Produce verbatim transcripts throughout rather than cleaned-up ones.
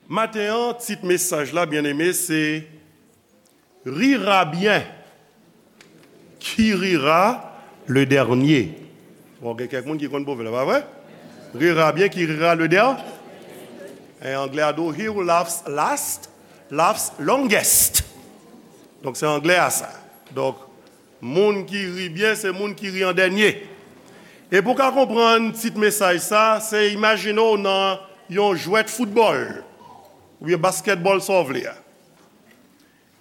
Maten an, tit mesaj la, byeneme, se Rira bien, qui rira le dernier. Bon, gen kèk moun ki konn pwovèb la, pa vre? Rira bien, qui rira le dernier. En anglè a di, he who laughs last, laughs longest. Donk, se anglè a sa. Donk, moun ki ri byen, se moun ki ri an dènye. E pou w ka konprann tit mesaj sa, se imajine w nan yon jwèt foutbòl, oubyen baskètbòl, sa w vle a.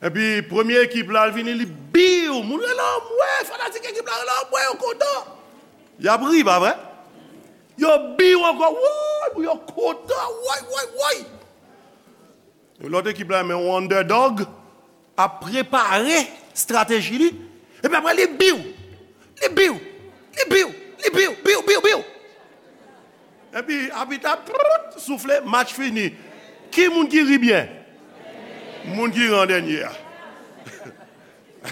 Epi, premye ekip la, l vini, li biw. Moun rele anmwe, fanatik ekip la rele anmwe, yo kontan. Y ap ri, pa vre? Yo biw ankò, woy, moun yo kontan, woy, woy, woy. Lòt ekip la, men yon underdog, ap prepare estrateji li. Epi apre, li biw. Li biw. Li biw. Li biw. Biw, biw, biw. Epi, abit la, prrrt, soufle, match fini. Ki moun ki ri byen? Moun ki ri an dènye a.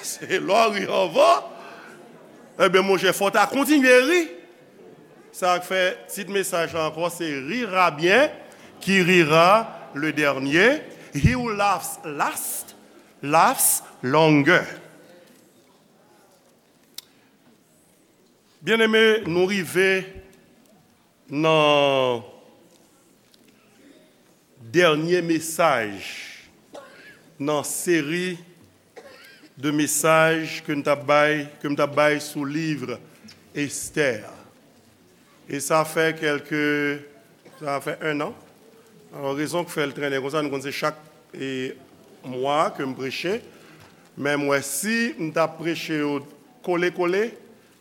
Se lè w ri anvan. Ebyen, monchè, fò w ta kontinye ri. Sa k fè tit mesaj la ankò, se Rira bien, qui rira le dernier. He who laughs last, laughs longer. Byeneme, nou rive nan dènye mesaj nan seri de mesaj ke m t ap bay, ke m t ap bay sou liv Estè. E sa fè kèlke, sa fè en an. Alò, rezon k fè l trennen konsa, nou konn se chak, e, mwa ke m preche. Men m wè si m t ap preche yo kole kole,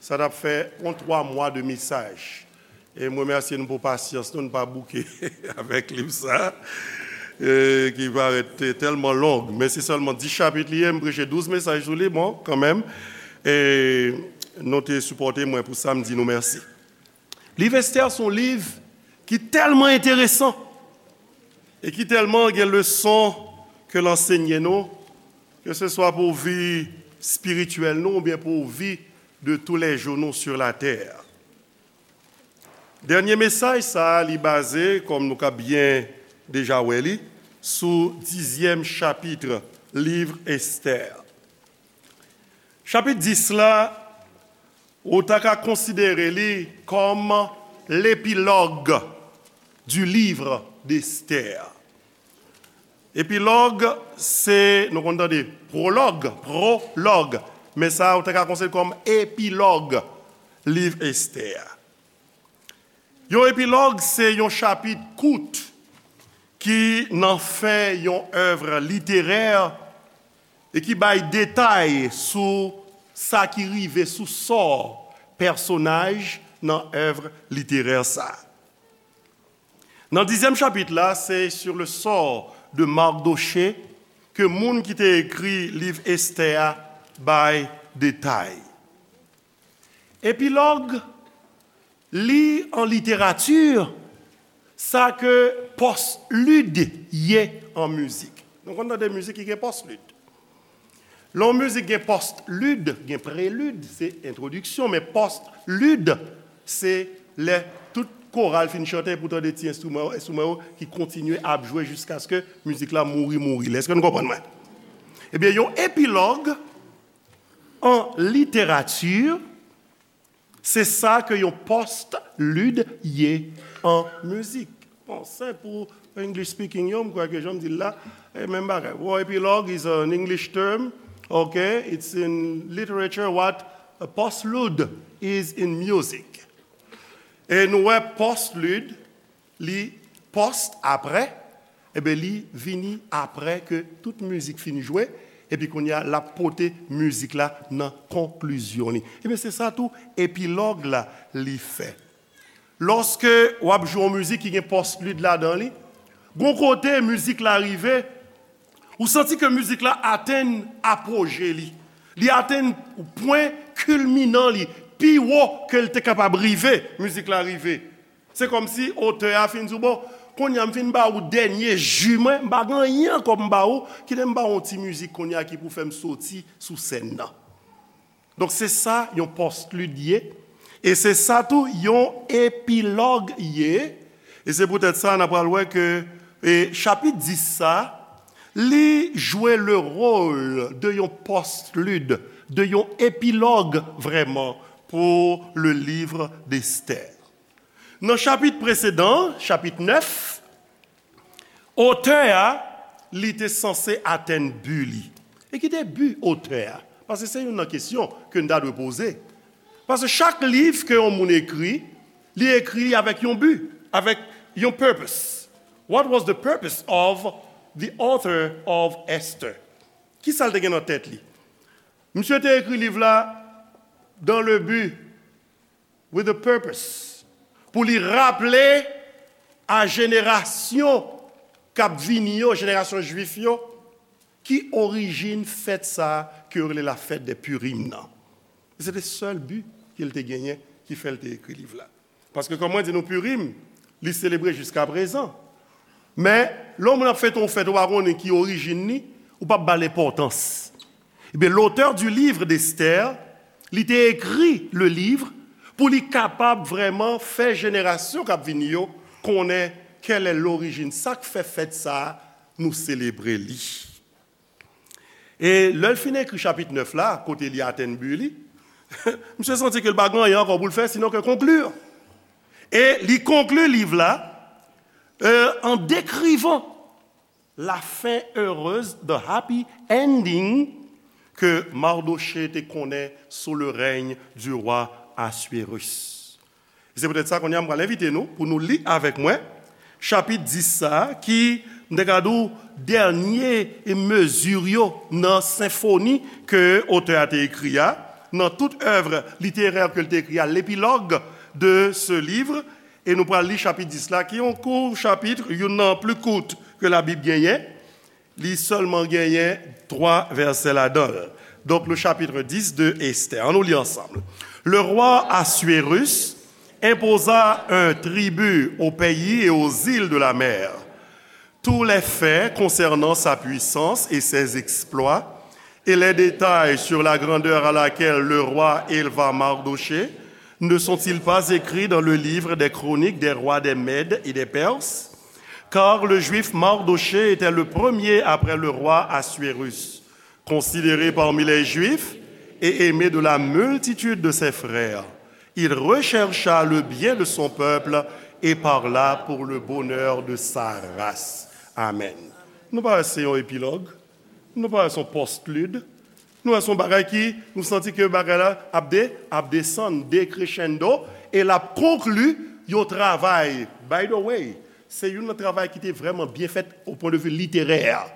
sa t ap fè yon twa mwa de mesaj. E m remèsye nou pou pasyans nou, nou pa bouke avèk liv sa, e, ki parèt te-, tèlman long. Men se sèlman dis chapit li ye, m preche douz mesaj sou li, bon, kanmenm. E nou te sipòte mwen pou sa, m di nou mèsi. Liv Estè se yon liv ki tèlman enteresan e ki tèlman gen leson ke l ansenye nou, ke se swa pou vi espirityèl nou oubyen pou vi de tous les jours nou sur la terre. Dènye mesaj sa a, li baze, kòm nou ka byen deja wè li, sou dizyèm chapit liv Estè. Chapit dis la, ou ta ka konsidere li kòm l'épilogue du livre d'Esther. Epilòg, se, nou konn tande pwològ, pwològ, men sa a, ou ta ka konsidere kòm epilòg liv Estè a. Yon epilòg, se yon chapit kout ki nan fen yon èv literè e ki bay detay sou sa ki rive, sou sò pèsonaj nan èv literè sa a. Nan dizyèm chapit la, se sur le sort de Mardochée ke moun ki te ekri liv Estè a bay detay. Epilòg, li an literati, sa ke pòstlid ye an mizik. Nou konn tande mizik ki gen pòstlid. Lè yon mizik gen pòstlid, gen prelid, se entwodiksyon, men pòstlid, se lè tout koral fin chante, epi w tande ti enstriman yo, enstriman yo ki kontinye ap jwe jiskaske mizik la mouri, mouri. Èske nou konprann mwen? Ebyen, yon epilòg an literati, se sa ke yon pòstlid ye an mizik. Bon, senp pou English speaking yo, m kwè ke jan m di l la, e menm bagay. War epilogue is an English term, okay? It's in literature what a postlude is in music. E nou wè pòstlid, li pòst apre, ebyen, li vini apre ke tout mizik fin jwe, epi kounye a, l ap pote mizik la nan konklizyon li. Ebyen, se sa tou, epilòg la, li fè. Lòske w ap jwe yon mizik ki gen pòstlid ladan li, gon kote mizik la rive, ou santi ke mizik la atenn apoje li. Li atenn pwen kilminan li, pi wo ke l te kapab rive, mizik la rive. Se kòmsi otè a fin di w, bon, kounye a m fin ba ou dènye ji mwen, m pa gen anyen ankò pou m ba ou, kite m ba ou yon ti mizik kounye a ki pou fè m soti sou sèn nan. Donk, se sa yon pòstlid ye, e se sa tou yon epilòg ye, e se poutèt sa n a pral wè ke E chapit dis sa, li jwe le rôle de yon postlude, de yon epilòg vrèman pou le livre d'Esther. Nan chapit presedan, chapit nèf, otè a, li te sanse atenn bi li. E ki te bi otè a? Paske se youn nan kesyon ke n ta dwe poze. Paske chak liv ke yon moun ekri, li ekri avèk yon bi, avèk yon purpose. What was the purpose of the author of Esther? Ki sa l te gen nan tèt li? Misye te ekri liv la dans le but, with a purpose, pou li raple a jenerasyon k ap vini yo, jenerasyon jwif yo, ki orijin fèt sa a ke yo rele la fête des Purim nan. E se te sèl bi ke l te genyen ki fè l te ekri liv la. Paske, kòm mwen di nou, Purim, li selebre jiska prezan. Men, lè yon moun ap fete yon fèt, ou pa konnen ki orijin li, ou p ap ba l enpòtans. Ebyen, l'auteur du livre d'Esther, li te ekri le livre pou li kapab vrèman fè jenerasyon k ap vini yo konnen kèl è lorijin, sa k fè fèt sa a, nou selebre li. E lè l fin ekri chapit nèf la, kote li atenn bi li, misye santi ke l pa gen anyen ankò pou l fè, sinon ke konkli. E li konkli liv la, euh, en décrivant la fin heureuse, the happy ending, ke Mardochée te konnen sous le règne du roi Assuérus. E se poutèt sa, kounye a, m pral envite nou pou nou li avèk mwen chapit dis sa a, ki, m te ka di w, dènye mezi yo nan senfoni ke otè a te ekri a, nan tout œuvre littéraire ke l te ekri a, l'épilogue de ce livre, e nou pral li chapit dis la, ki yon kout chapit, youn nan pli kout ke Labib genyen. Li sèlman genyen twa vèsè ladan l. Donc, le chapitre dix de Esther. Ann nou li ansanm. Le roi Assuérus imposa un tribut aux pays et aux îles de la mer. Tous les faits concernant sa puissance et ses exploits, et les détails sur la grandeur à laquelle le roi éleva Mardochée, ne sont-ils pas écrits dans le livre des chroniques des rois des Mèdes et des Perses? Car le Juif Mardochée était le premier après le roi Assuérus, considéré parmi les Juifs et aimé de la multitude de ses frères. Il rechercha le bien de son peuple et parla pour le bonheur de sa race. Amen. Nou pa wè se yon epilòg? Nou pa wè se yon postlude? Nou wè se yon bagay ki, nou santi ke bagay la ap de, ap desann, decrescendo, e l ap konkli yon travay. By the way, se youn nan travay ki te vrèman byen fèt au point de vue littéraire.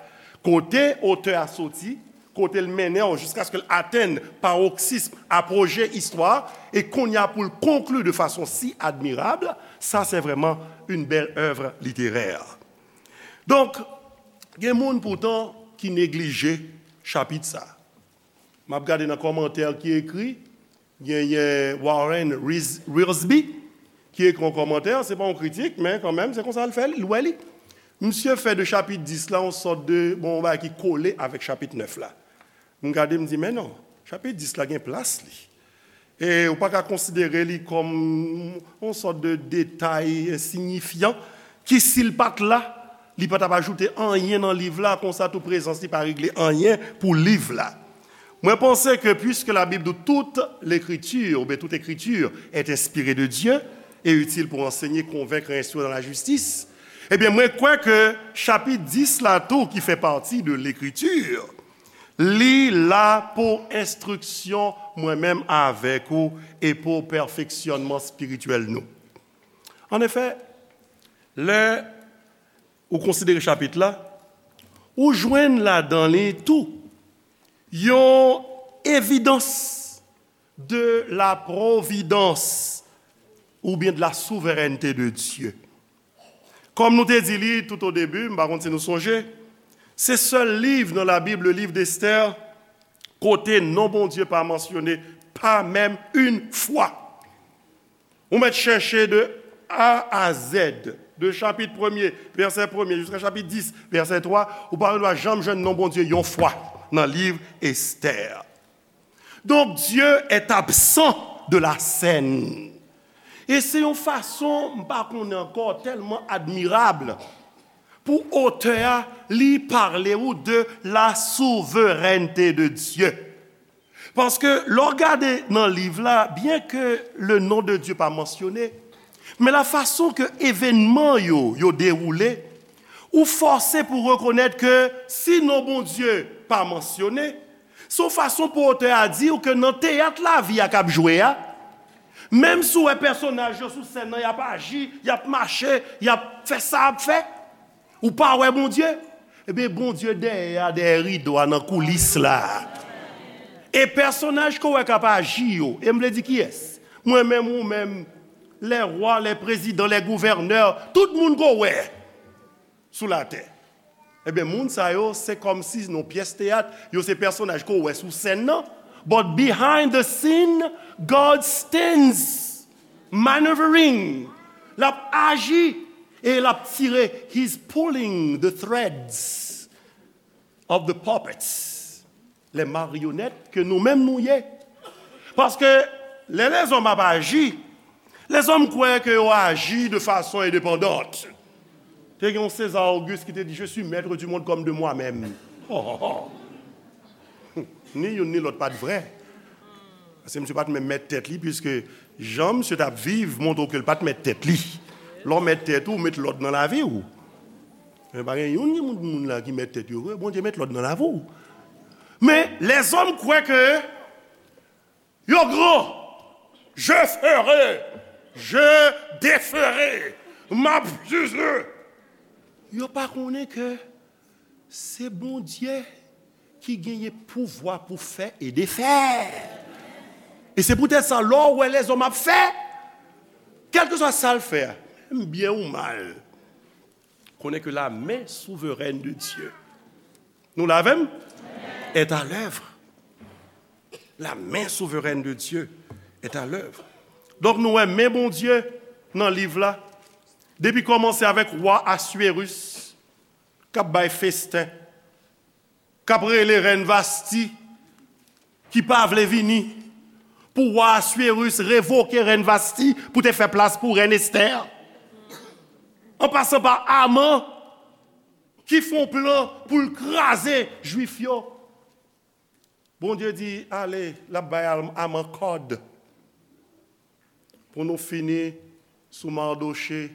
Kote otè a soti, kote l mennen w jiskaske l atenn paroksism, apogee istwa, e kounye a pou l konkli de fason si admirab, sa se vrèman une belle œuvre littéraire. Donk, gen moun poutan ki neglije chapit sa. M ap gade nan kòmantè ki ekri, genyen Warren Wiersbe ki ekri yon kòmantè, se pa yon kritik, men kanmenm, se konsa l fè l, l wè li. Misye fè de chapit dis la yon sòt de, bon, yon bagay ki kole avèk chapit nèf la. M gade, m di, men non, chapit dis la gen plas li. E ou pa ka konsidere li kòm yon sòt de detay ensinyifyan ki, si l pa t la, li pa t ap ajoute anyen nan liv la, konsa tou prezans li pa regle anyen pou liv la. Mwen panse ke, puisque la Bible dit toute l'écriture, oubyen toute écriture est inspirée de Dieu et utile pour enseigner, convaincre et instruire dans la justice, ebyen, mwen kwè ke chapit dis la tou, ki fè pati de Lekritur, li la pou enstriksyon mwen menm avèk ou e pou pèfeksyònman espirityèl nou. Anefè, lè ou konsidere chapit la, ou jwenn ladan li tou yon evidans de la providence oubyen de la souveraineté de Dieu. Kòm nou te di li tout o debi, m pa konn si nou sonje, se sèl liv nan Labib, le livre d'Esther, kote non Bondye pa mansyone, pa menm yon fwa. Ou mèt chèche de A a Z, de chapit premye, vèsè premye, jiska chapit dis, vèsè twa, ou pa dwa janm jwenn non Bondye yon fwa nan liv Esther. Donc, Dieu est absent de la scène. E se yon fason, m pa konnen ankò, tèlman admirab Pou otè a, li pale ou de la souveraineté de Dieu. Paske lè w gade nan liv la, byen ke le non de Dye pa mansyone, men la fason ke evènman yo, yo dewoule, ou fòse pou rekonèt ke si non Bondye pa mansyone, se yon fason pou otè a di w ke nan teyat lavi a k ap jwe a, menm si w wè pèsonaj yo sou sèn nan, y ap aji, y ap mache, y ap fè sa y ap fè, ou pa wè Bondye? Ebyen, Bondye dèyè a, dèyè rido a, nan koulis la. E pèsonaj ke w wè k ap aji yo, e m vle di kiyès? Mwen menm, ou menm, lè wa, lè prezidan, lè gouvènè, tout moun ke w wè sou latè. Ebyen, moun sa yo, se kòmsi nan pyès teyat, yo se pèsonaj ke w wè sou sèn nan. But behind the scene, God stands maneuvering. L ap aji e l ap tire. He's pulling the threads of the puppets. Les marionnettes ke nou menm nou ye. Paske lè lèzòm ap aji, lèzòm kwè ke yo aji de fason endepandant. Te gen yon César Auguste ki te di, "Je suis maître du monde comme de moi-même." Ni youn ni lòt pa t vrè. Paske misye pa t menm mèt tèt li, piske jan misye t ap viv montre w ke l pa t mèt tèt li. Lè w mèt tèt ou, ou met lòd nan lavi w. Men pa gen youn nan moun, moun la ki mèt tèt yo vre. Bondye met lòd nan lavi w. Men lèzòm kwè ke yo gran. Je ferai, je déferai, m ap jije. Yo pa konnen ke se Bondye ki genyen pouvwa pou fè e defè. E se poutèt sa, lè w wè lèzòm ap fè, kèlkeswa sa l fè a, byen ou mal, konnen ke la main souveraine de Dieu, nou la avè m? Est à l'œuvre. La main souveraine de Dieu est à l'œuvre. Donk, nou wè men Bondye nan liv la, depi kòmanse avèk wa Aswérus, k ap bay festen, k ap rele rèn Vasti, ki pa vle vini, pou wa Aswérus revoke rèn Vasti pou te fè plas pou rèn Estè. An pasan pa Aman, ki fè yon plan pou l kraze Jwif yo. Bondye di, "Ale," l ap bay Am-, Aman kòd. Pou nou fini sou Mardochée,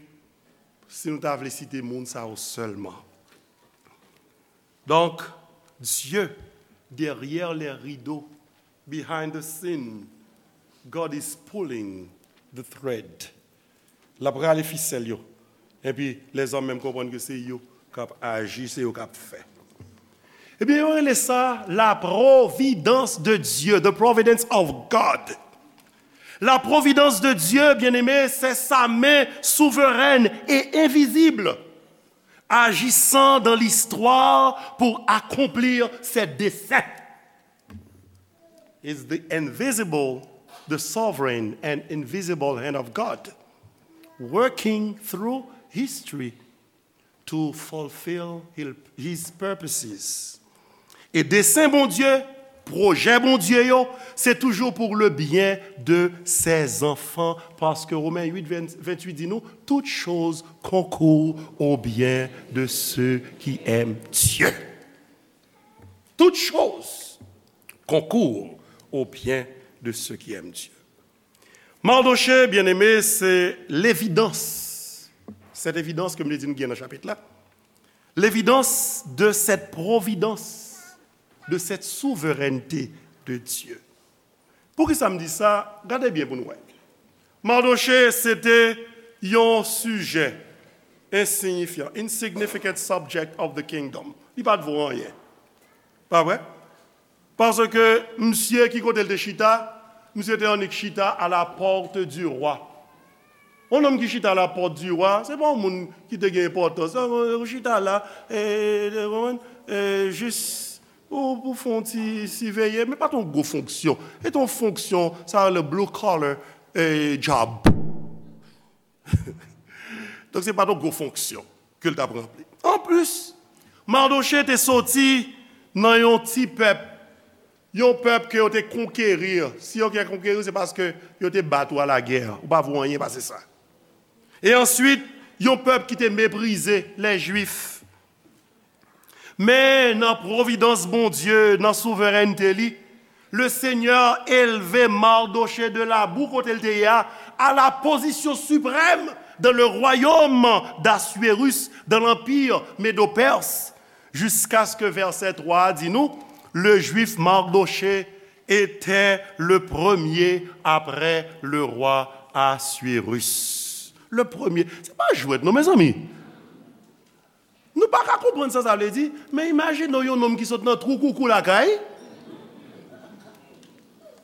si nou ta vle site moun sa yo sèlman. Donk, Dieu, derrière les rideaux, behind the scene, God is pulling the thread. L ap rale fisèl yo. Epi, lèzòm menm konprann ke se yo k ap aji, se yo k ap fè. Ebyen, yo rele sa la providence de Dieu, the providence of God. La providence de Dieu, bien-aimé, c'est sa main souveraine et invisible, agissant dans l'histoire pour accomplir ses desseins. Is the invisible, the sovereign and invisible hand of God, working through history to fulfill his purposes. E desen Bondye, pwojè Bondye yo, se toujou pour le bien de ses enfants, paske Romen uit, venntuit di nou, "Toutes choses concourent au bien de ceux qui aiment Dieu." Toutes choses concourent au bien de ceux qui aiment Dieu. Mardochée, bien-aimé, se levidans. Cette évidence ke m te di nou gen nan chapit la. Levidans de cette providence, de cette souveraineté de Dieu. Poukisa m di sa? Gade byen pou nou wè. Mardochée, se te yon sijè ensiyifyan, insignificant subject of the kingdom. Li pa t vo anyen. Pa vre? Paske misye ki kote l te chita, misye te annik chita à la porte du roi. Yon nonm ki chita à la porte du roi, se pa yon moun ki te gen enpòtans. Ou chita la, e, e, jis pou, pou fè yon ti siveye, men pa t yon gwo fonksyon. E t yon fonksyon, sa le blue collar, e, job. Donk, se pa t yon gwo fonksyon ke l t ap ranpli. Anplis, Mardochée te soti nan yon ti pèp, yon pèp ke yo te konkeri. Si yo te konkeri, se paske yo te bat ou a la guerre. Ou pa vo anyen pase sa. E answit, yon pèp ki te meprize les Juifs. Men nan pwovidans Bondye, nan souverènte li, le Seigneur élevait Mardochée de la boue kote l te ye a, à la position suprême dans le royaume d'Assuérus, dans l'empire médo-perse, jusqu'à ce que verset trois a di nou, le juif Mardochée était le premier après le roi Assuérus. Le premier. Se pa jwèt non, mezanmi. Nou pa ka konprann sa sa vle di, men imajine w yon nonm ki sot nan twou koukou lakay.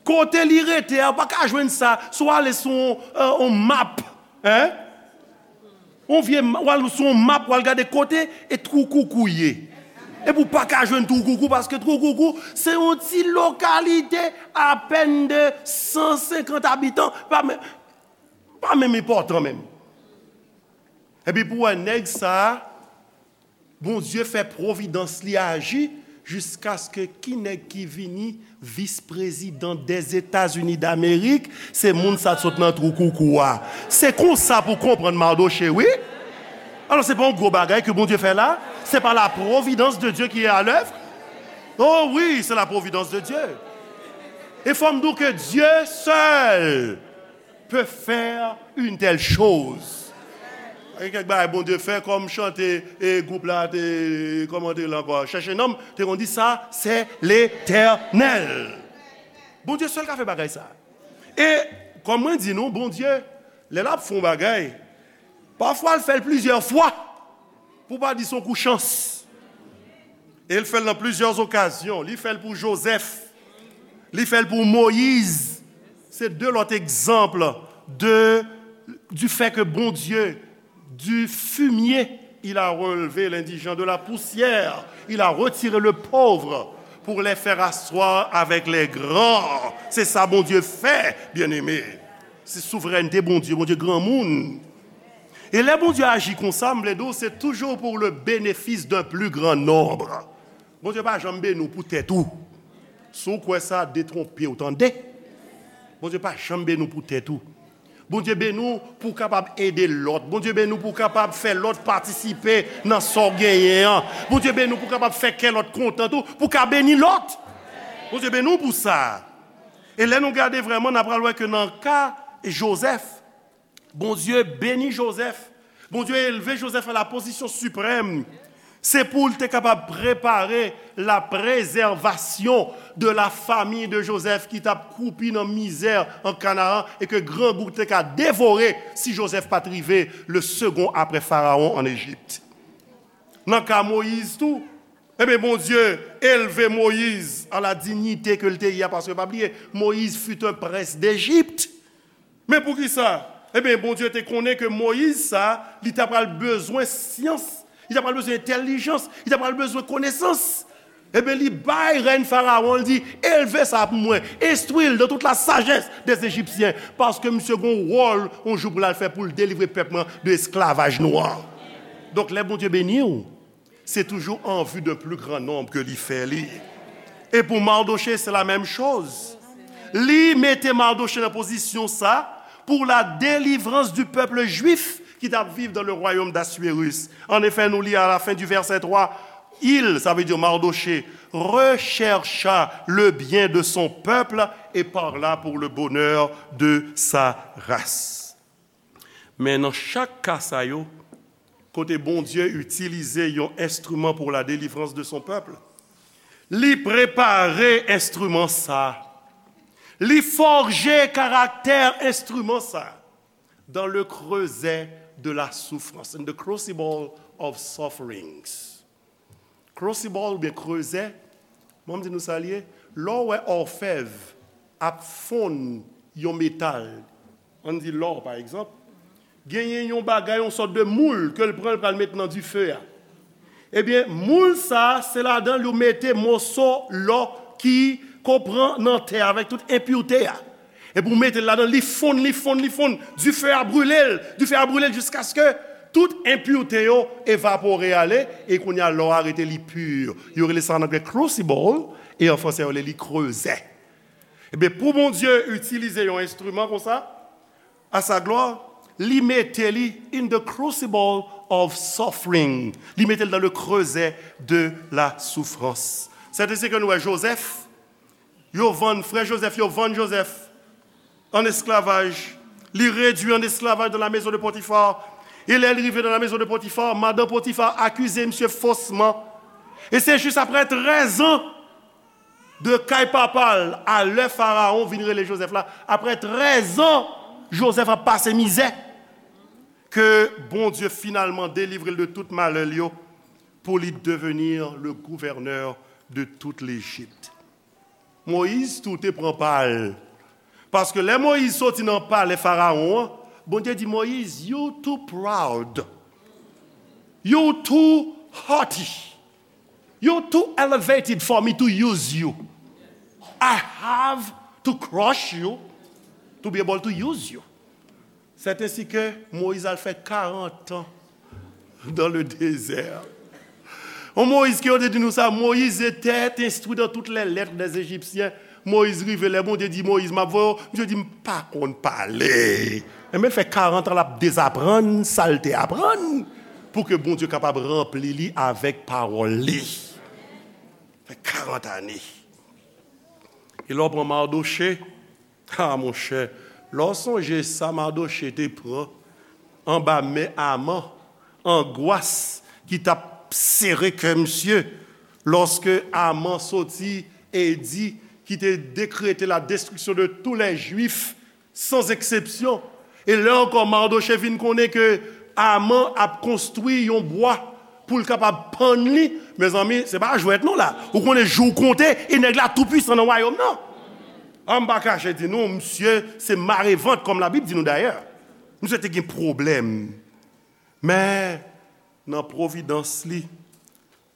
Kote li rete a, ou pa ka jwenn sa, si w ale sou yon, euh, yon map, hein? Yon vye ma-, w al sou yon map, w al gade kote e twou koukou ye. Epi w pa ka jwenn twou koukou, paske twou koukou, se yon ti lokalite apèn de san senkant abitan, pa men-, pa menm enpòtan menm. Epi pou wè nèg sa a, Bondye fè pwovidans li aji jiskaske ki nèg ki vini vis prezidan dèzetazini damerik, se moun sa t sot nan twou koukou a. Se konsa pou konprann Mardochée, wi. Alò, se pa yon gwo bagay ke Bondye fè la? C'est pas la providence de Dieu qui est à l'œuvre? Oh wi, se la providence de Dieu. E fò m di w ke Dye sèl peut faire une telle chose. Gen kèk bagay Bondye fè, kòm chante e gwoup la te, kòman te la ankò, chèche non m, te konn di sa, c'est l'Éternel. Bondye sèl ka fè bagay sa. E kòm mwen di nou, Bondye, lè l ap fè yon bagay, pafwa l fè l plizyè fwa. Pou pa di se yon kou chans. E l fè l nan plizyè okazyon. Li fè l pou Jozèf. Li fè l pou Moyiz. Se de lòt egzanp de, du fait que Bondye, du fumier, il a relevé l'indigent, de la poussière, il a retiré le pauvre pour les faire asseoir avec les grands. Se sa Bondye fè, byeneme. Se souverènte Bondye, Bondye granmoun. E lè Bondye aji konsa, m vle di w, se toujours pour le bénéfice d'un plus grand nombre. Bondye pa janm beni w pou tèt ou. Si w kwè sa, detwonpe w, tande. Bondye pa janm beni w pou tèt ou. Bondye beni w pou w kapab ede lòt. Bondye beni w pou w kapab fè lòt patisipe nan sa w genyen an. Bondye beni w pou w kapab fè kè lòt kontan tou, pou w ka beni lòt. Bondye beni w pou sa. E lè nou gade vrèman, n a pral wè ke nan ka Jozèf, Bondye beni Jozèf. Bondye elve Jozèf a la pozisyon siprèm. Se pou l te kapab prepare la préservation de la famille de Joseph ki t ap kwoupi nan mizè an Kanaran e ke grangou te ka devore si Jozèf pa t rive le second après Pharaon en Égypte. Nan ka Moyiz tou, ebyen, Bondye elve Moyiz a la dinyite ke l te ye a, paske pa bliye, Moyiz fut un prince d'Égypte. Men poukisa? Ebyen, Bondye te konnen ke Moyiz sa, li ta pral bezwen syans, li ta pral bezwen entèlijans, li ta pral bezwen konesans. Ebyen, li bay rèn Farawon, li di, elve sa pou mwen, enstwi l dans toute la sagesse des Égyptiens, paske misye gon wòl, yon jou pou l al fè pou l delivre pèp mwen de esklavaj nwa. Donk, lè Bondye beni w, se toujou en vue d'un plus grand nombre ke li fè li. E pou Mardochée, c'est la même chose. Li mete Mardochée nan pozisyon sa pour la délivrance du peuple juif ki t ap viv dans le royaume d'Assuérus. En effet, nou li à la fin du verset trois, il, sa vle di Mardochée, rechercha le bien de son peuple et parla pour le bonheur de sa race. Men nan chak ka sa yo, kote Bondye itilize yon enstriman pour la délivrance de son peuple, li prepare enstriman sa, li fòje karaktè enstriman sa dans le creuset de la souffrance, in the crucible of sufferings. Crucible oubyen creuset, bon, m di nou sa l ye, lè w wè òfèv ap fonn yon metal, ann di lò, pa egzanp, genyen yon bagay, yon sòt de moul ke l pran, l pral met nan dife a. Ebyen, moul sa, se ladan l yo mete moso lò ki, ke w pran nan tè avèk tout enpirte a. Epi w mete l ladan, li fonn, li fonn, li fonn. Dife a brile l, dife a brile l jiskaske tout enpirte yo evapore ale, e kounye a lò a rete li pi. Yo rele sa an anglè crucible, e an franse yo rele li creuset. Ebyen, pou Bondye itilize yon enstriman konsa, à sa gloire, li mete li in the crucible of suffering. Li mete l dans le creuset de la souffrance. C'est ainsi que nou wè Joseph, yo vann, frè Joseph, yo vann Joseph an esklavaj. Li redui an esklavaj dans la maison de Potiphar. E lè li rive dans la maison de Potiphar, madan Potiphar akize misye fosman. E se jis apre trèz an de kay papa l a lè Farawon vin rele Joseph la, apre trèz an, Joseph ap pase mizè, ke Bondye finalman delivre l de tout malè l yo, pou li devenir le gouverneur de toute l'Égypte. Moyiz tou te pran pa l. Paske lè Moyiz soti nan palè Farawon an, Bondye di Moyiz, "You too proud. You too haughty. You too elevated for me to use you. I have to crush you to be able to use you." C'est ainsi que Moïse al fè karant an dans le désert. On Moïse ke yo te di nou sa, Moïse était instruit dans toutes les lettres des Égyptiens. Moïse rive, lè Bondye di Moïse, "M ap voye w," misye di, "M pa konn pale." Enben, l fè karant an l ap dezaprann sa l te aprann pou ke Bondye kapab ranpli li avèk pawòl li. Fè karant ane. E lè w pran Mardochée, ah, monchè, lè w sonje sa Mardochée te pran anba men Aman, angwas ki t ap sere kè misye, lòske Aman soti edi ki te dekrete la destriksyon de tous les Juifs, sans exception. E lè ankò Mardochée vin konnen ke Aman ap konstwi yon bwa pou l kapab pann li, mezanmi, se pa jwèt non la. Ou konnen jou w konte, e nèg la tou pwisan nan wayòm nan. An m pa kache di nou, misye se marevant, kòm Labib di nou dayè. Misye te gen pwoblèm. Men, nan pwovidans li,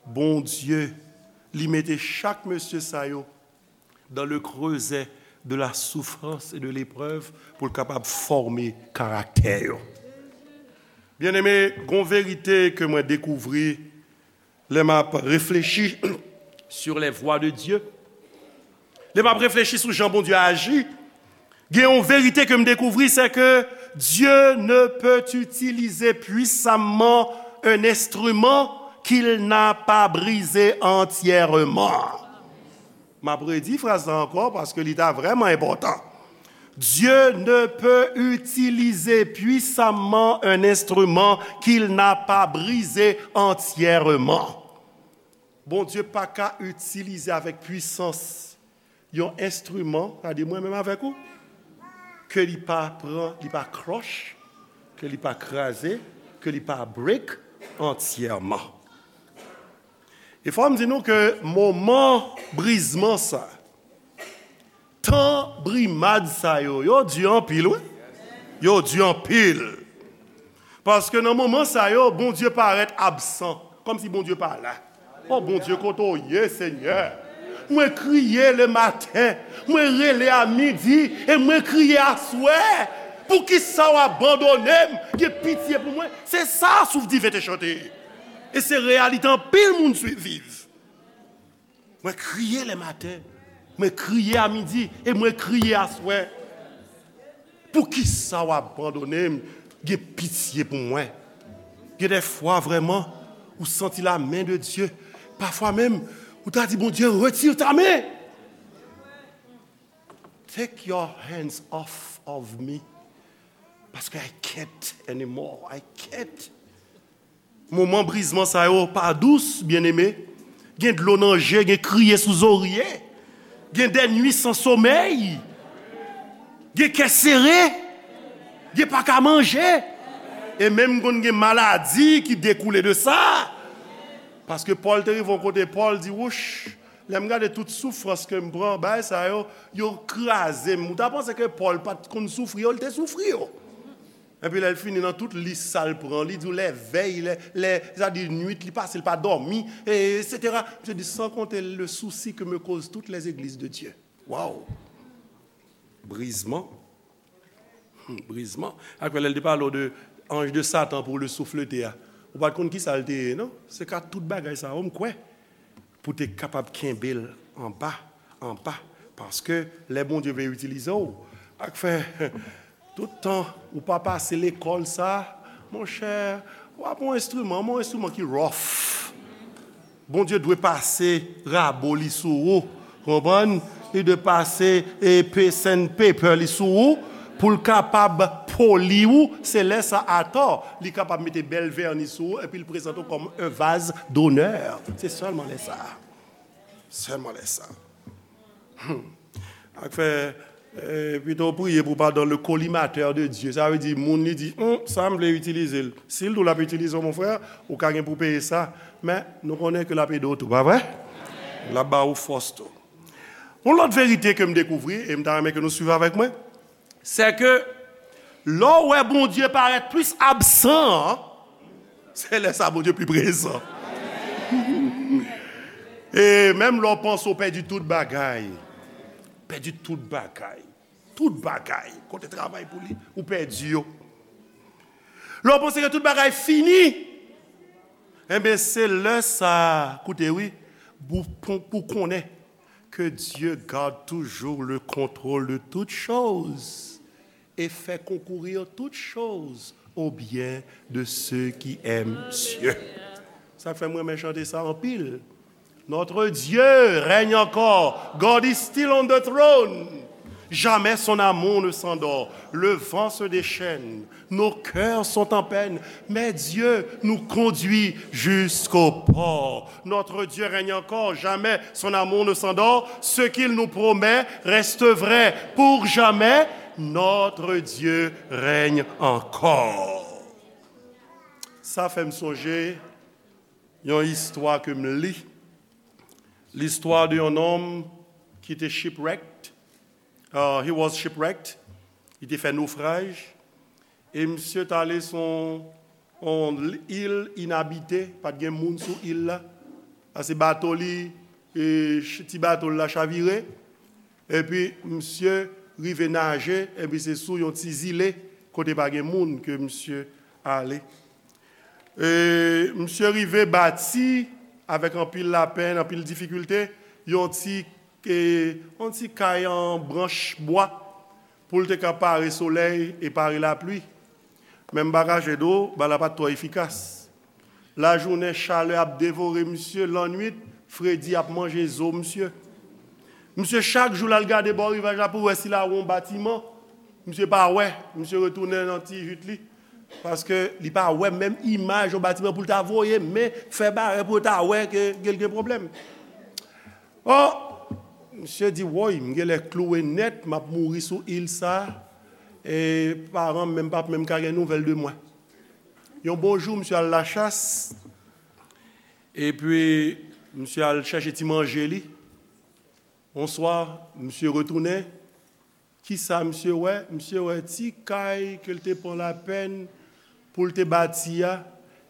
Bondye, li mete chak mesye sa yo dans le creuset de la souffrance et de l'épreuve pou l kapab fòme karaktè yo. Byeneme, gon verite ke mwen dekouvri lè m ap reflechi sur les voies de Dieu. Lè m ap reflechi sou jan Bondye aji, gen yon verite ke m dekouvri, c'est que Dieu ne peut utiliser puissamment un instrument qu'il n'a pas brisé entièrement. M ap redi fraz la ankò paske li ta vrèman enpòtan. Dieu ne peut utiliser puissamment un instrument qu'il n'a pas brisé entièrement. Bondye pa ka itilize avèk pwisans yon enstriman, sa di mwen menm avèk ou, ke li pa pran, li pa crush, ke li pa kraze, ke li pa break antyèman. E fò m di nou ke moman brizman sa, tan brimad sa yo, yo di anpil, wi. Yo di anpil. Paske nan moman sa yo, Bondye parèt absan, kòmsi Bondye pa la. O Bondye, kote w ye, Senyè? Mwen kriye le maten, mwen rele a midi, e mwen kriye aswè. Poukisa w abandone m? Gen pitye pou mwen. Se sa Souf Diven te chante. E se reyalite anpil moun swi- viv. Mwen kriye le maten, mwen kriye a midi, e mwen kriye aswè. Poukisa w abandone m? Gen pitye pou mwen. Gen de fwa, vrèman, ou santi la men de Dye. Pafwa menm, ou ta di, Bondye, retire ta men. Take your hands off of me. Paske I can't anymore. I can't. Moman brizman sa yo pa dous, byeneme. Gen dlo nan je, gen kriye sou zorye. Gen dè nwi san somèy. Gen kè sere. Gen pa ka manje. E menm konn gen maladi ki dekoule de sa. Paske Pòl te rive yon kote, Pòl di, wouch, lè m gade tout soufrans ke m pran, bagay sa yo, yo kraze m. Ou ta panse ke Pòl pa t konn soufri yo, li te soufri yo. Epi lè l fini nan tout lis sa l pran, li di w lè vèy, lè, lè, sa di nwit li pase, l pa dòmi, e, etsetera. Misye di, sans compter le souci que me causent toutes les églises de Dieu. Waw! Brizman. Hmm, brizman. Akwè lè l te pale w de ange de Satan pour le souffleter a. Ou pa t konn kisa l te ye, non? Se ka tout bagay sa yo, m kwè. Pou te kapab kenbe l anba, anba. Paske lè Bondye vle itilize w, ak fè, tout tan ou pa pase lekòl sa, monchè, W ap yon enstriman, men yon enstriman ki rough. Bondye dwe pase rabo li sou ou, konprann? Li dwe pase e pe sandpaper li sou ou pou l kapab poli ou. Se lè sa atò li kapab mete bèl vèni sou ou epi l prezante w kòm un vase d'honneur. Se sèlman lè sa. Sèlman lè sa. Ak fè, eh, pito w priye pou w pa dans le collimateur de Dieu. Sa vle di, moun li di, hum, sa m vle itilize l. Si l di w l ap itilize w, mon frè, ou ka gen pou w peye sa. Men, nou konnen ke l ap ede w tou, pa vre? L ap ba ou fòs tou. Yon lòt verite ke m dekouvri, e m ta renmen ke nou swiv avèk mwen, se ke lè w wè Bondye parèt plis absan an, se lè sa Bondye pi prezan. E menm lè w panse w pèdi tout bagay, pèdi tout bagay, tout bagay, kote travay pou li, ou pèdi yo. Lè w panse ke tout bagay fini, enben, se lè sa, koute wi, pou, pou, pou konnen que Dieu garde toujours le contrôle de toutes choses et fait concourir toutes choses au bien de ceux qui aiment Dieu. Sa fè mwen renmen chante sa anpil. Notre Dieu règne encore. God is still on the throne. Jamais son amour ne s'endort. Le vent se déchaîne. Nos cœurs sont en peine, mais Dieu nous conduit jusqu'au port. Notre Dieu règne encore, jamais son amour ne s'endort. Ce qu'il nous promet reste vrai pour jamais. Notre Dieu règne encore. Sa fè m sonje yon istwa ke m li. Listwa de yon nonm ki te shipwrecked. Uh, he was shipwrecked. Li te fè nofraj. E misye t ale sou yon, yon il inabite, pa t gen moun sou il la. Pase bato li, e, ch-, ti bato l la chavire. Epi misye rive naje, epi se sou yon ti zile kote pa gen moun ke misye ale. E, misye rive bati avèk anpil lapenn, anpil difikilte, yon ti, e, yon ti kay an branch bwa pou l te ka pare solèy e pare lapli. Men m pa kache di w, bagay la pa t twò efikas. Lajounen, chalè ap devore misye, lannwit, fredi ap manje zo misye. Misye, chak jou l al gade bò rivaj la pou wè si l a wè yon batiman. Misye pa wè, misye retounen nan ti jit li. Paske li pa wè menm imaj yon batiman pou l ta voye men fè barè pou yo ta wè ke, ke l gen pwoblèm. O, misye di, woy, m genlè klouwe nèt, m ap mouri sou il sa, e paran m menm p ap menm ka gen nouvèl de mwen. Yon bon jou, misye al lachas, epi misye al chèche ti manje li. Yon swa, misye retounen. Kisa misye wè? Misye wè ti kay ke l te pran lapèn pou l te bati a,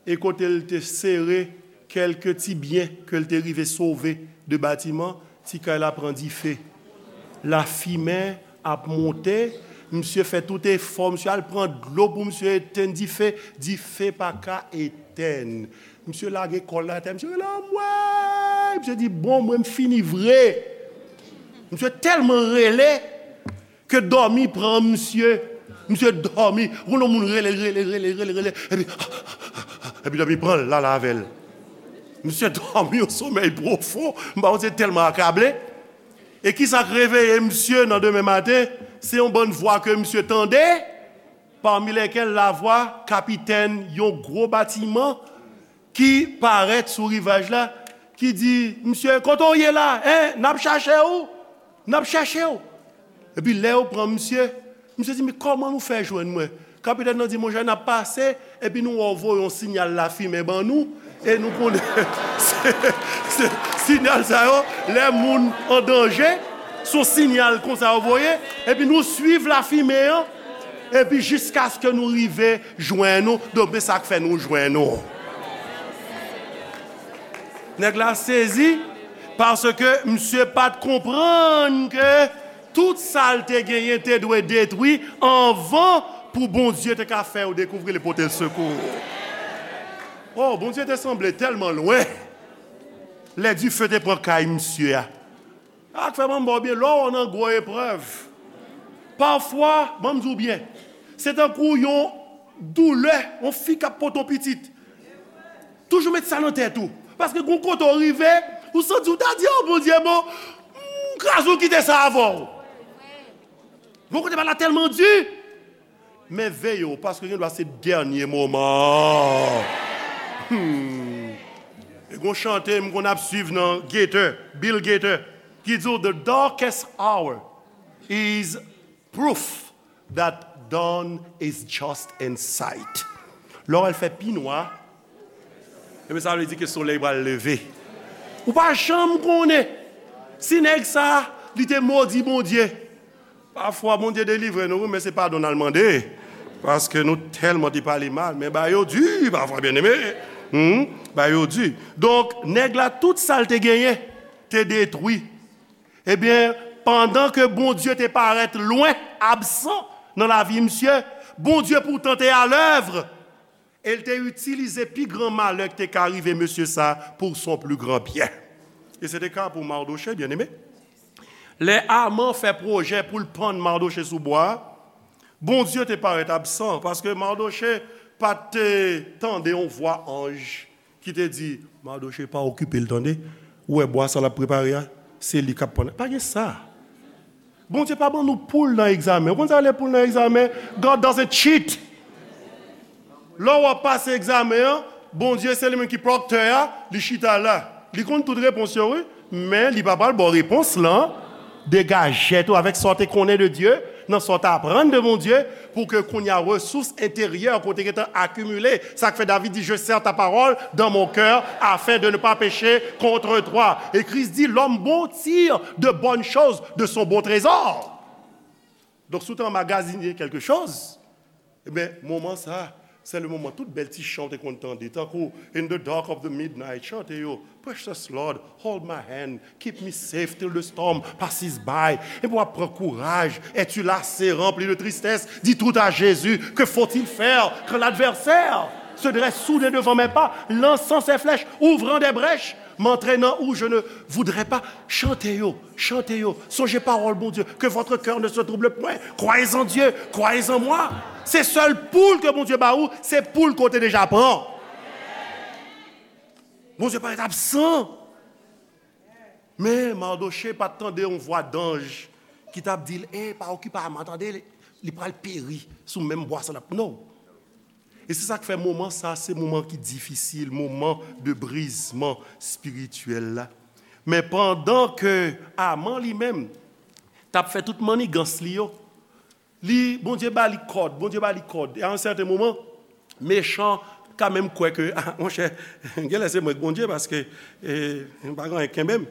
e kote l te sere kèlke ti byen ke l te rive sove de batiman, ti kay la pran dife. Lafimen ap monte, misye fè tout efò, misye al pran dlo pou misye etenn dife, dife pa ka etenn. Misye lage kò l atè, misye rele, anmwey! Misye di, bon, mwen m fini vre. Misye tèlman rele ke dòmi pran misye. Misye dòmi. Ou konn yon moun rele, rele, rele, rele, rele, epi, epi dòmi pran l, l ale avè l. Misye dòmi yon somèy pwofon. M pa konn se tèlman akable. E kisa k reveye misye nan demen maten? Se yon bann vwa ke misye tande, parmi lesquelles la voix kapitèn yon gwo batiman ki parèt sou rivaj la, ki di, misye, kote w ye la? Hein? N ap chache w! N ap chache w! Epi lè yo pran misye, misye di, men kòman nou fè jwenn mwen? Kapitèn nan di, monchè, n ap pase, epi nou wè w voye yon siyal lafimen ban nou, e nou konnen se, se, siyal sa yo, lè moun an danje, se yon siyal konsa yo voye, epi nou swiv lafimen an, epi jiskaske nou rive jwenn ou, donk men sa k fè nou jwenn ou. Nèg la sezi, paske misye pa t konprann ke tout sa l te genyen te dwe detwi anvan pou Bondye te ka fè yo dekouvri l e pote l sekou. O, Bondye te sanble tèlman lwen. Lè dife te pran kay misye a. Sa k fè ban m ba w byen, lè w nan gwo eprèv, pafwa, ban m di w byen, se tankou yon doulè, yon fi k ap pote yon pitit. Toujou met sa nan tèt ou. Paske gon kote w rive, ou santi w ta di, "Oh, Bondye, bon, m kraze w kite sa avè w." Gon kote bagay la tèlman di. Men veye w, paske gen dwa se dènye moman. Hmm. E gon chante m konn ap swiv nan Gaither, Bill Gaither, ki di w, "The darkest hour is proof that dawn is just in sight." Lè w wè l fè pi nwa, ebyen sa vle di ke solèy pral leve. Ou pa janm konnen si nèg sa, li te modi Bondye. Pafwa, Bondye delivre nou, wi, men se padon n al mande. Paske nou tèlman te pale mal, men bagay yo di, pafwa, byeneme. Hmm, bagay yo di. Donk, nèg la, tout sa l te genyen, te detwi. Ebyen, pandan ke Bondye te parèt lwen, absan nan lavi misye, Bondye poutan te alèv. E l te itilize pi gran malè ki te ka rive mesye sa pou son pli gran byen. E se te ka pou Mardochée, byeneme. Lè Aman fè pwojè pou l pann Mardochée sou bwa a, Bondye te parèt absan, paske Mardochée pa t tande yon vwa anj ki te di, "Mardochée, pa okipe l, tande. Ou wè bwa sa l ap prepare a? Se li k ap pann." Pa gen sa. Bondye pa ban nou poul nan egzamen. Ou konn sa rele poul nan egzamen? God doesn't cheat. Lè w ap pase egzamen an, Bondye se li menm ki proctor a, li chita la. Li konn tout repons yo, wi, men li pa pral ba w repons lan. Degaje tèt ou avèk sa w te konnen de Dye, nan sa w te aprann de Bondye, pou ke kounye a resous enteryè ke w te gentan akimile. Sa k fè David di, "Je serre ta parole dans mon cœur afin de ne pas pécher contre toi." E Kris di, "L'homme bon tire de bonnes choses de son bon trésor." Donk, si w te anmagazine quelque chose, ebyen, moman sa, se le moman tout bèl ti chan w te konn tande, tankou In the dark of the midnight, chante yo, "Precious Lord, hold my hand, keep me safe till the storm passes by." Epi w ap pran kouraj, "Es-tu lassé, rempli de tristesse? Dis tout à Jésus, que faut-il faire quand l'adversaire se dresse soudain devant mes pas, lançant ses flèches, ouvrant des brèches, m'entraînant où je ne voudrais pas?" Chante yo, chante yo, sonje pawòl Bondye, "Que votre cœur ne se trouble point, croyez en Dieu, croyez en moi." Se sèl poul ke Bondye ba ou, se poul ke w te deja pran. Bondye parèt absan. Men Mardochée pa t tande yon vwa danj ki t ap di l, "E, pa okipe Aman, tande, li pral peri sou menm bwa sa l ap." Non. E se sa k fè moman sa, se moman ki difisil, moman de brizman espirityèl la. Men pandan ke Aman li menm t ap fè tout mannigans li yo, li, Bondye ba li kòd, Bondye ba li kòd. E a yon sèten moman, mechan ka menm kwè ke, ah, monchè, genlè se mwen k Bondye, paske, eh, m pa gen anyen k kenbe m.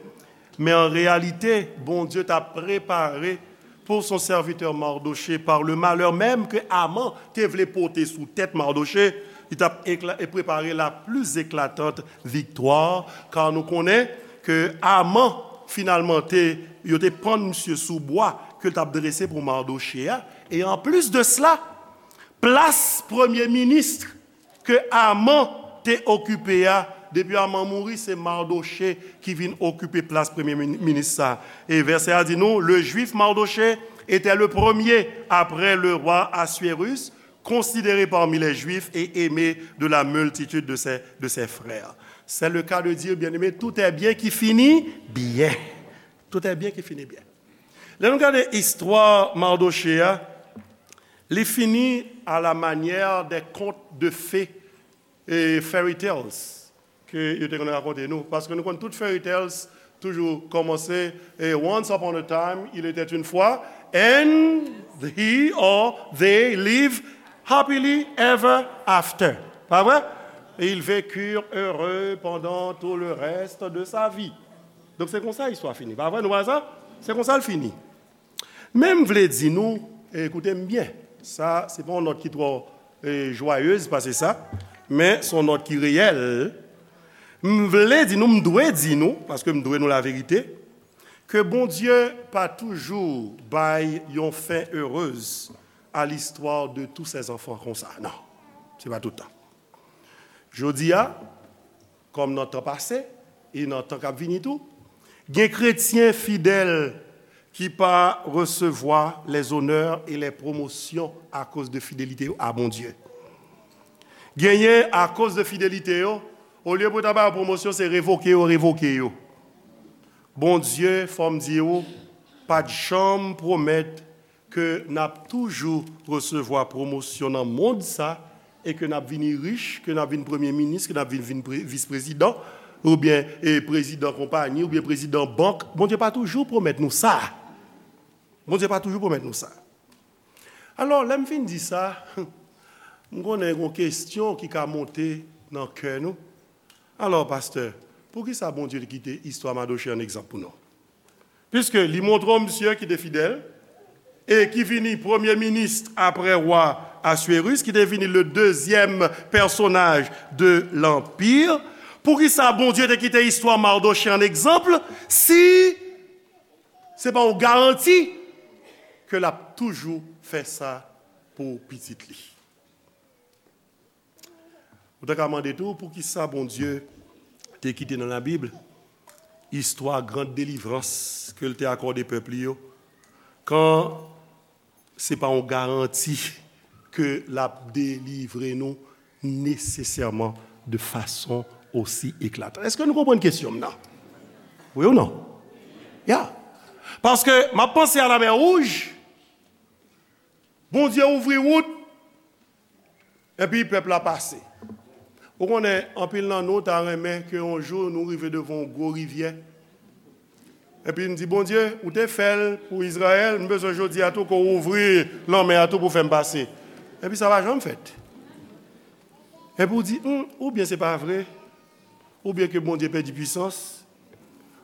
Men an reyalite, Bondye t ap prepare pour son serviteur Mardochée, par le malheur même que Aman te vle pote sou tèt Mardochée, li t ap ekla-, e prepare la plus éclatante victoire, kar nou konnen ke Aman, finalman, te, yo te pann misye sou bwa ke l t ap drese pou Mardochée a. E anplis de sela, plas premye minis ke Aman te okipe a, depi Aman mouri, se Mardochée ki vin okipe plas premye min-, minis sa. E vèsè a di nou, le Juif Mardochée était le premier après le roi Assuérus, considéré parmi les Juifs et aimé de la multitude de ses, de ses frères. C'est le cas de dire, bien-aimé, tout est bien qui finit bien. Tout est bien qui finit bien. Lè nou gade istwa Mardochée a, li fini à la manière des contes de fées e fairy tales ke yo te konn rakonte nou. Paske nou konn tout fairy tales toujou kòmanse, e, "Once upon a time, il était une fois, and he or they live happily ever after." Pa vre? Et ils vécurent heureux pendant tout le reste de sa vie. Donk, se konsa istwa fini. Pa vre, nou wè sa? Se konsa l fini. Men m vle di nou, e, koute m byen, sa, se pa yon nòt ki twò, e, jwayez pase sa, men se yon nòt ki reyèl. M vle di nou, m dwe di nou, paske m dwe nou laverite, ke Bondye pa toujou bay yon fen erez à l'histoire de tous ses enfants konsa. Non, se pa tout tan. Jodi a, kòm nan tan pase, e nan tan k ap vini tou, gen kretyen fidèl ki pa resevwa les honneurs et les promotions akoz de fidelite yo a Bondye. Genyen, akoz de fidelite yo, Olye pou ta ba yo pwomosyon, se revoke yo, revoke yo. Bondye, fò m di w, pa t janm pwomèt ke n ap toujou resevwa pwomosyon nan mond sa, e ke n ap vini rich, ke n ap vin premye minis, ke n ap vin, vin pre-, vis prezidan, oubyen, e, prezidan konpayi, oubyen prezidan bank. Bondye pa toujou pwomèt nou sa. Bondye pa toujou pwomèt nou sa. Alò, lè m fin di sa, m konnen gen yon kesyon ki ka monte nan kè nou. Alò, pastè, poukisa Bondye te kite istwa Madoche an egzanp pou nou? Piske li montre w misye ki te fidèl, e ki vini premye minis apre wa Aswéris, ki te vini le dezyèm pèsonaj de lanpi. Poukisa Bondye te kite istwa Madoche an egzanp si se pa yon garanti ke l ap toujou fè sa pou pitit li? Ou ta ka mande tou, poukisa Bondye te kite nan Labib istwa gran delivrans ke l te akòde pèp li yo, kan se pa yon garanti ke l ap delivre nou nesesèman de fason osi eklatan? Èske nou konprann kesyon m nan? Wi ou non? Ya. Paske m ap panse a Lamè Wouj, Bondye ouvri wout, epi pèp la pase. Ou konnen, anpil nan nou ta renmen ke yon jou nou rive devan yon gwo rivyè. Epi n di, Bondye, ou te fè l pou Izrayèl, m bezwen jodi a tou ke w ouvri lanmè a tou pou fè m pase. Epi sa pa janm fèt. Epi w di, hmm, oubyen se pa vre, oubyen ke Bondye pèdi pwisans,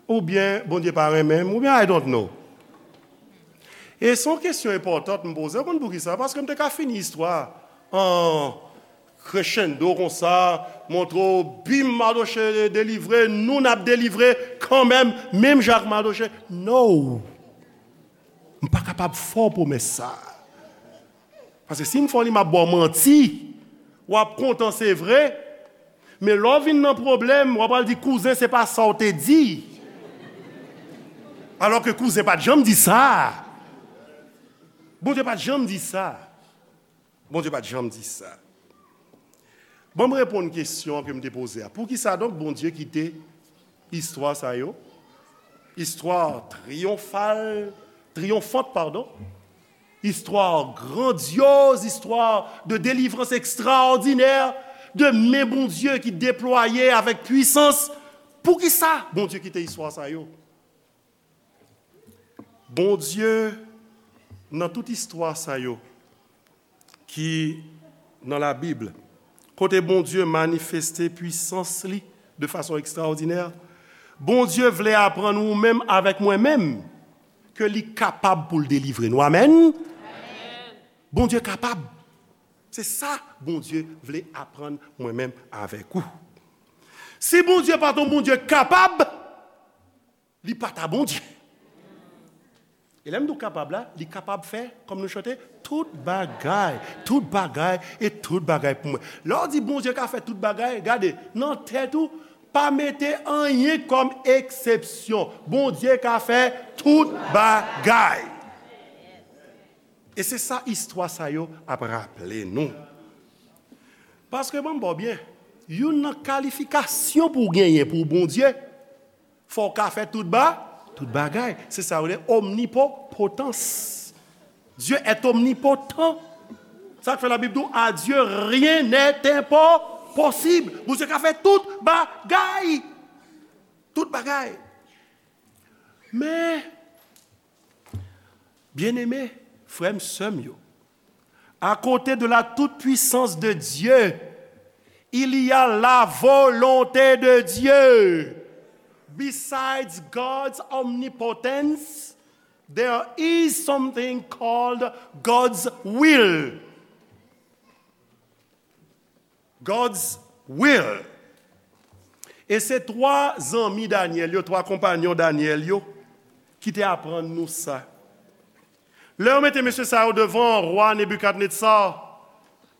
oubyen Bondye pa renmen m, oubyen I don't know. E se yon kesyon enpòtan m poze. Ou konn poukisa? Paske m te ka fini istwa an crescendo konsa, montre w, bim, Madoche delivre, nou n ap delivre kanmenm, menm jan ak Madoche. No! M pa kapab fè w pwomès sa. Paske si m fè w li, m ap ba w manti. W ap kontan, se vre, men lè w vin nan pwoblèm, w ap al di kouzen, se pa sa w te di. Alòske kouzen pa t janm di sa. Bondye pa t janm di sa. Bondye pa t janm di sa. Ban m reponn kesyon ke m te poze a. Poukisa donk Bondye kite istwa sa yo, istwa triyonfal, triyonfant, padon, istwa grandyoz, istwa de delivrans ekstraòdinè, de men Bondye ki deplwaye avèk pwisans? Poukisa Bondye kite istwa sa yo? Bondye, nan tout istwa sa yo ki nan Labib, kote Bondye manifeste pwisans li de fason ekstraòdinè, Bondye vle aprann ou menm avèk mwen menm ke li kapab pou l delivre nou. Amèn? Bondye kapab. Se sa Bondye vle aprann mwen menm avèk ou. Si Bondye pa t yon Bondye kapab, li pa ta Bondye. E lè m di w kapab la, li kapab fè, kòm nou chante, tout bagay, tout bagay e tout bagay pou mwen. Lè w di Bondye ka fè tout bagay, gade, nan tèt ou, pa mete anyen kòm eksepsyon. Bondye ka fè tout bagay. E se sa istwa sa yo ap raple nou. Paske, ban m ba w byen, youn nan kalifikasyon pou w genyen pou Bondye, fò w ka fè tout ba, tout bagay. Se sa yo rele omnipotans. Dieu est omnipotent. Sa k fè Labib di w, à Dieu rien n'est impossible. Bondye ka fè tout bagay. Tout bagay. Men, byeneme, frè m, sè m yo, à côté de la toute-puissance de Dieu, il y a la volonté de Dieu. Besides God's omnipotence, there is something called God's will. God's will. E se twa zanmi Danyèl yo, twa konpanyon Danyèl yo, ki te aprann nou sa. Lè yo mete mesye sa yo devan wa Nebikadnetsa,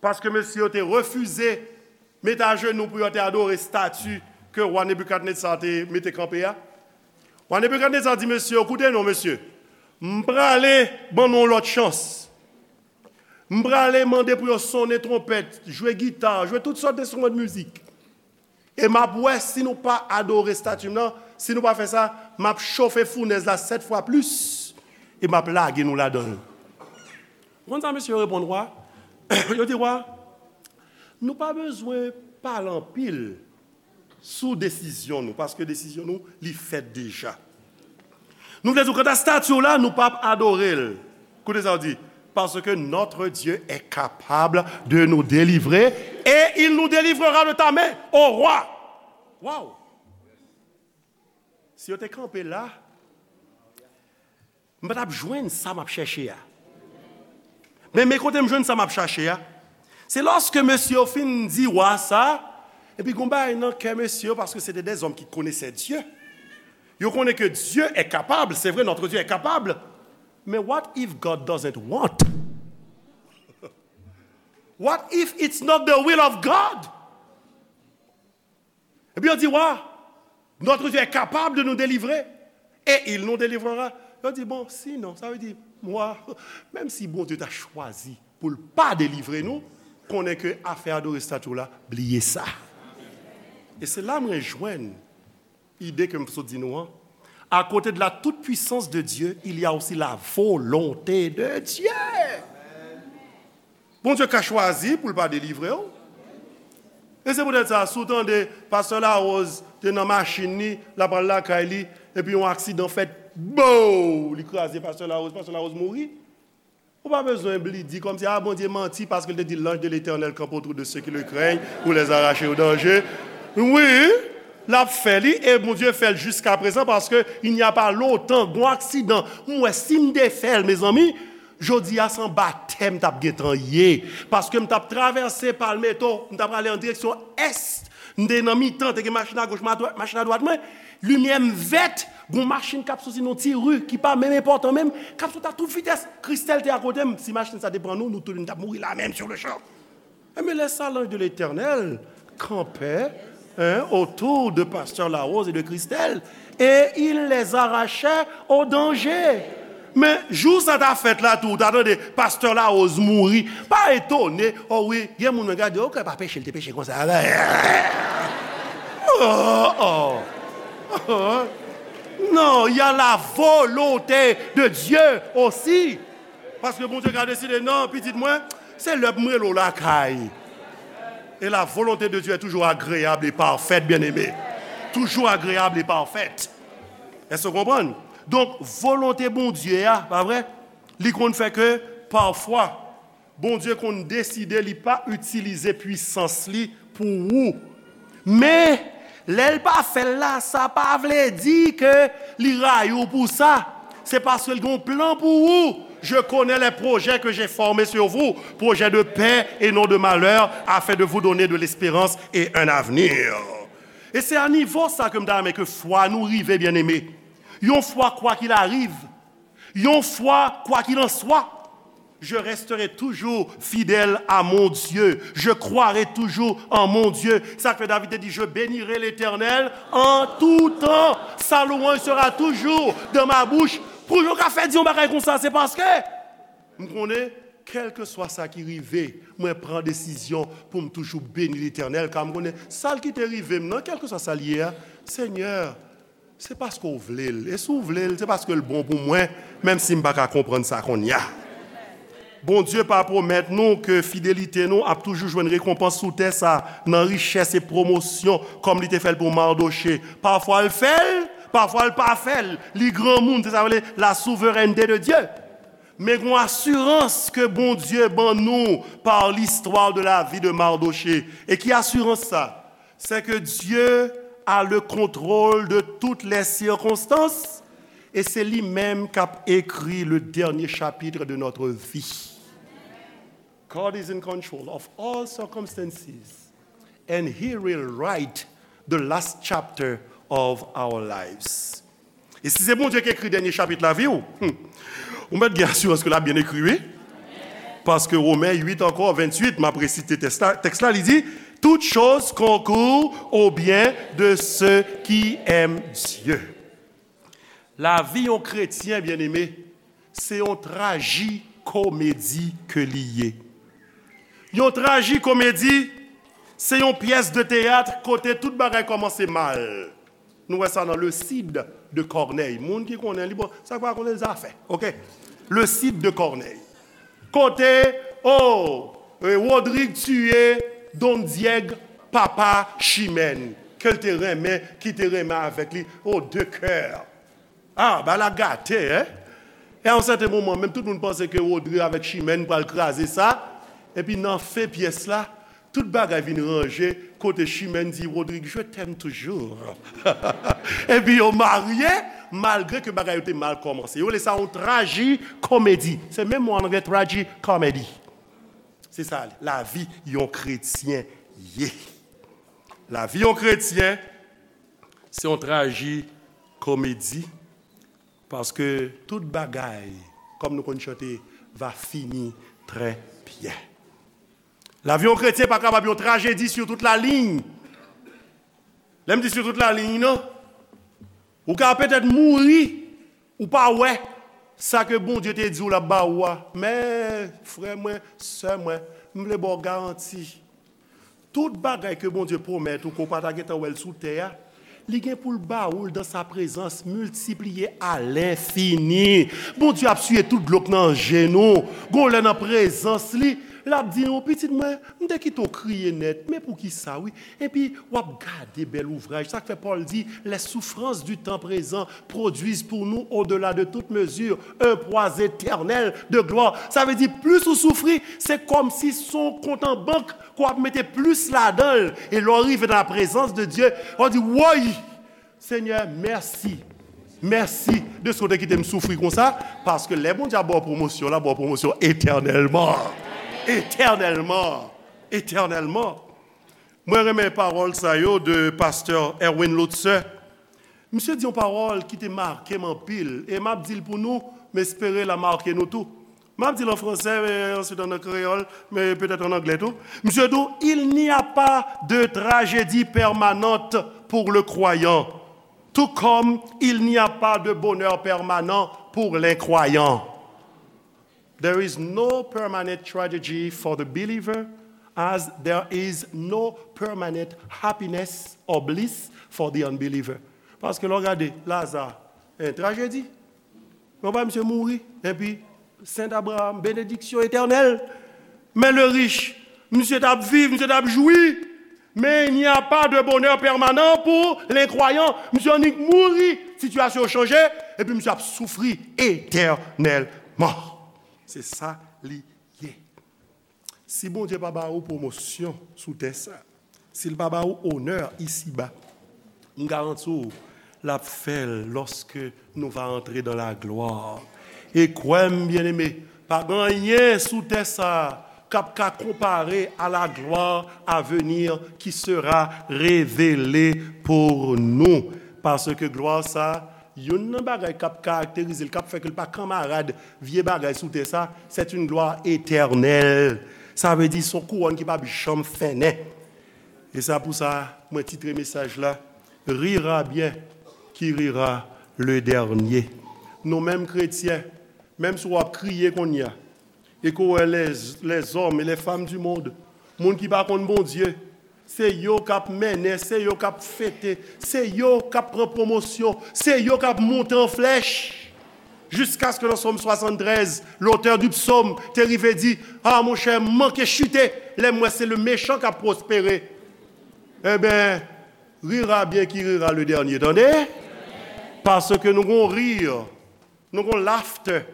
paske mesye yo te refize mete ajenou pou yo te adore estati ke wa Nebikadnetsa te mete kanpe a, wa Nebikadnetsa di mesye yo, koute non, mesye, m prale ban nou yon lòt chans. M prale mande pou yo sonnen twonpèt, jwe gita, jwe tout sòt enstriman de mizik. E m ap wè si nou pa adore estati m nan, si nou pa fè sa, m ap chofe founèz la sèt fwa plis, e m ap lage nou ladan l. Ou konn sa mesye yo reponn wa? Yo di, wa, nou pa bezwen pale anpil sou desizyon nou, paske desizyon nou, li fèt deja. Nou vle di, kanta estati w la, nou p ap adore l. Koute sa w di, parce que notre Dieu est capable de nous délivrer et il nous délivrera de ta main, ô roi. Wow! Si yo te kanpe la, m pa t ap jwenn sa m ap chèche a. Men, men kote m jwenn sa m ap chache a. Se lòske mesye yo fin di wa sa, epi gon bagay nan kè mesye yo, paske se te dèzòm ki konesè Dye. Yo konnen ke Dye è kapab, se vre, notre Dieu est capable. Men what if God doesn't want? What if it's not the will of God? Epi yo di, wa, notre Dieu est capable de nous délivrer et il nous délivrera. Yo di, bon, sinon, sa vle di, mwa, menm si Bondye ta chwazi pou l pa delivre nou, konnen ke afè adore estati w la, bliye sa. E se la mwen jwenn ide ke m sot di nou an. À côté de la toute-puissance de Dieu, il y a aussi la volonté de Dieu. Bondye ka chwazi pou l pa delivre w. E se poutèt sa, si w tande Pastè Larose te nan machin li, l ap al lakay li, epi yon aksidan fèt, bow! Li kraze Pastè Larose, Pastè Larose mouri. Ou pa bezwen bli di kòmsi, a, Bondye manti paske l te di, l'ange de l'Éternel campe autour de ceux qui le craignent pour les arracher au danger. Wi, l ap fè li, e Bondye fè l jiskaprezan, paske il n'y a pas longtemps, gon aksidan, m wè si m te fè l, mezanmi, jodi a se yon batèm m t ap gentan ye, paske m t ap travèse Palmetto, m t ap prale an direksyon ès, m te nan mitan, te gen machin agoch, ma dwat, machin adwat mwen, limyè m vèt, gon machin k ap soti nan ti ri ki pa menm enpòtan menm, k ap soti a tout vitès. Kristèl te akote m, si machin sa te pran nou, nou tout nou t ap mouri la menm sur le champ. Enben, lè sa, l'ange de l'Éternel campait, hein, autour de Pasteur Larose et de Christelle, et il les arrachait au danger. Men, jou sa ta fèt la tou, ou ta tande Pastè Larose mouri. Pa etone, o wi, gen moun mwen gade, o, kè pa peche, l te peche konsa. Oh, oh. Non, il y a la volonté de Dieu aussi. Paske Bondye ka deside, non, pitit mwen, se lè pou m rele w lakay. Et la volonté de Dieu est toujours agréable et parfaite, bien-aimé. Toujours agréable et parfaite. Èske w konprann? Donk, volonte Bondye a, pa vre? Li konn fè ke, pafwa, Bondye konn deside li pa itilize pwisans li pou ou. Men, lè l pa fè l la, sa pa vle di ke li rayi w pou sa. Se paske l gen yon plan pou ou. Je connais les projets que j'ai formés sur vous, projets de paix et non de malheur, afin de vous donner de l'espérance et un avenir. E se a nivo sa ke m ta renmen ke fwa nou rive, byeneme. Yon fwa, kwa qu'il arrive, yon fwa, quoi qu'il en soit, je resterai toujours fidèle à mon Dieu. Je croirai toujours en mon Dieu. Sa k fè David te di, je bénirai l'Éternel en tout temps. Sa louanj sera toujours dans ma bouche. Pou yo ka fè di yon bagay konsa, se paske m konnen, kèlkeswa sa ki rive, mwen pran desizyon pou m toujou beni Letènèl, ka m konnen sa l kite rive m nan, kèlkeswa sa l ye a, Senyè, se paske w vle l. E si w vle l, se paske l bon pou mwen, menm si m pa ka konprann sa kounye a. Bondye pa pwomèt nou ke fidelite nou ap toujou jwenn rekonpans sou tè sa, nan richès e pwomosyon, kòm li te fè l pou Mardoche. Pafwa l fè l, pafwa l pa fè l. Li granmoun, se sa vle, la souveraineté de Dieu. Men gon asirans ke Bondye ban nou par l'histoire de la vie de Mardochée. E ki asirans sa? C'est que Dieu a le contrôle de toutes les circonstances et c'est lui-même qui a écrit le dernier chapitre de notre vie. God is in control of all circumstances and he will write the last chapter of our lives. E si se Bondye ki ekri dènye chapit lavi w, hmm, ou mèt gen asirans ke l ap byen ekri, wi. Paske Women uit ankò, venntuit, m ap resite tèks la, tèks la, li di, toutes choses concourent au bien de ceux qui aiment Dieu. Lavi yon kretyen, byeneme, se yon trajikomedi ke li ye. Yon trajikomedi, Se yon pyès de teyat kote tout bagay kòmanse mal. Nou wè sa nan Le Cid de Corneille. Moun ki konnen li, bon, sa k pa konnen zafè, oke? Le Cid de Corneille. Kote, oh, eh, Rodrig tiye Don Dièg, papa Chimène, ke l te renmen, ki te renmen avèk li, oh, de cœur. Ah, bagay la gate, en? E a yon sèten moman, menm tout moun panse ke Rodrig avèk Chimène pral kraze sa. Epi nan fen pyès la, tout bagay vin ranje, kote Chimène di Rodrig, "Je t'aime toujours." Epi yo marye, malgre ke bagay yo te mal kòmanse. Yo rele sa yon traji komedi. Se menm mo an anglè, traji comedy. Se sa, lavi yon kretyen ye. Lavi yon kretyen, se yon traji komedi. Paske tout bagay, kòm nou konn chante, va fini trè byen. Lavi yon kretyen pa kapab yon trajedi sur toute la ligne. Lè m di sur toute la ligne, non. Ou ka petèt mouri, ou pa wè sa ke Bondye te di w l ap ba ou a. Men, frè mwen, sè mwen, m vle ba w garanti. Tout bagay ke Bondye pwomèt ou ke w pa ta gentan wè l sou tè a, li gen pou l ba ou l dans sa présence, miltipliye à l'infini. Bondye ap siye tout dlo k nan je nou. Gon lè nan prezans li, l ap di nou, "Pitit mwen, m te kite w kriye nèt, men poukisa, wi?" Epi, w ap gade bèl ouvraj. Sa k fè Pòl di, "Les souffrances du temps présent produisent pour nous, au-delà de toute mesure, un poids éternel de gloire." Sa vle di, plis ou soufri, se kòmsi se yon kont an bank ke w ap mete plis ladan l. E lè w rive nan la prezans de Dye, w ap di, "Woy! Senyè, mèsi. Mèsi de sa w te kite m soufri konsa." Paske lè Bondye ap ba w pwomosyon, l ap ba w pwomosyon etènèlman. Etènèlman. Etènèlman. Mwen renmen pawòl sa yo de pastè Erwin Lutzer. Misye di yon pawòl ki te make m anpil, e m ap di l pou nou, m espere l a make nou tou. M ap di l an fransè, men answit an kreyòl, men petèt an anglè tou. Misye di, "Il n'y a pas de tragédie permanente pour le croyant, tout comme il n'y a pas de bonheur permanent pour l'incroyant." There is no permanent tragedy for the believer, as there is no permanent happiness or bliss for the unbeliever. Paske lè w gade Laza, en trajedi. Men w pa misye mouri, epi Sent Abraham, benediksyon etènèl. Men le rich, misye t ap viv, misye t ap jwi. Men il n'y a pas de bonheur permanent pour l'incroyant. Misye annik mouri, sitiyasyon yo chanje, epi misye ap soufri etènèlman. Se sa li ye. Si Bondye pa ba ou pwomosyon sou tè sa, si l pa ba ou onè isiba, m garanti w, l ap fè l lòske nou va antre dans la gloire. E kwè m, byeneme, pa gen anyen sou tè sa a k ap ka konpare à la gloire à venir qui sera révélée pour nous. Paske glwa sa a, youn nan bagay k ap karakterize l, k ap fè ke l pa kanmarad vye bagay sou tè sa, c'est une gloire éternelle. Sa vle di, se yon kouwòn ki p ap janm fennen. E sa pou sa, mwen titre mesaj la, Rira bien qui rira le dernier. Nou menm kretyen, menm si w ap kriye kounye a, e ke w wè les, les hommes et les femmes du monde, moun ki pa konn Bondye, se yo k ap mennen, se yo k ap fete, se yo k ap pran pwomosyon, se yo k ap monte an flèch. Jiskaske nan Sòm swasanntrèz, lotè di psòm te rive di, "Ah, monchè, m manke chite, lè m wè se le mechan k ap pwospere." Enben, rira bien qui rira le dernier, tande? Paske nou gon rir, nou gon laughter,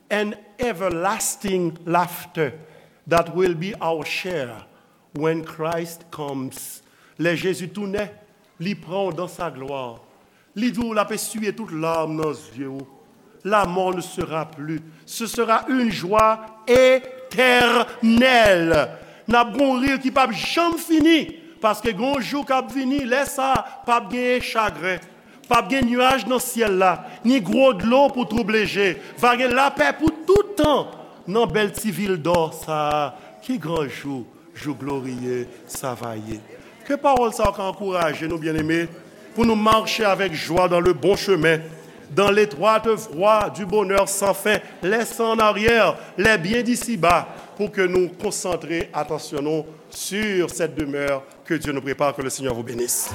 an everlasting laughter that will be our share when Christ comes. Lè Jezi tounen, li pran w dans sa gloire. Li di w l ap esiye tout larm nan zye w. La mort ne sera plus. Ce sera une joie éternelle. N ap gon rir ki p ap janm fini, paske gon jou k ap vini, lè sa a, p ap genyen chagren. P ap gen nyaj nan syèl la, ni gwo dlo pou twouble je. Va gen lapè pou tout tan nan bèl ti vil dò sa a. Ki gran jou, jou gloriye sa va ye. Ke pawòl sa yo ka ankouraje nou, byeneme, pou nou mache avèk jwa dans le bon chemin. dans l'étroite voie du bonheur sans fin. Laissons en arrière les biens d'ici-bas pour que nous concentrions attention nous sur cette demeure que Dieu nous prépare. Que le Seigneur vous bénisse.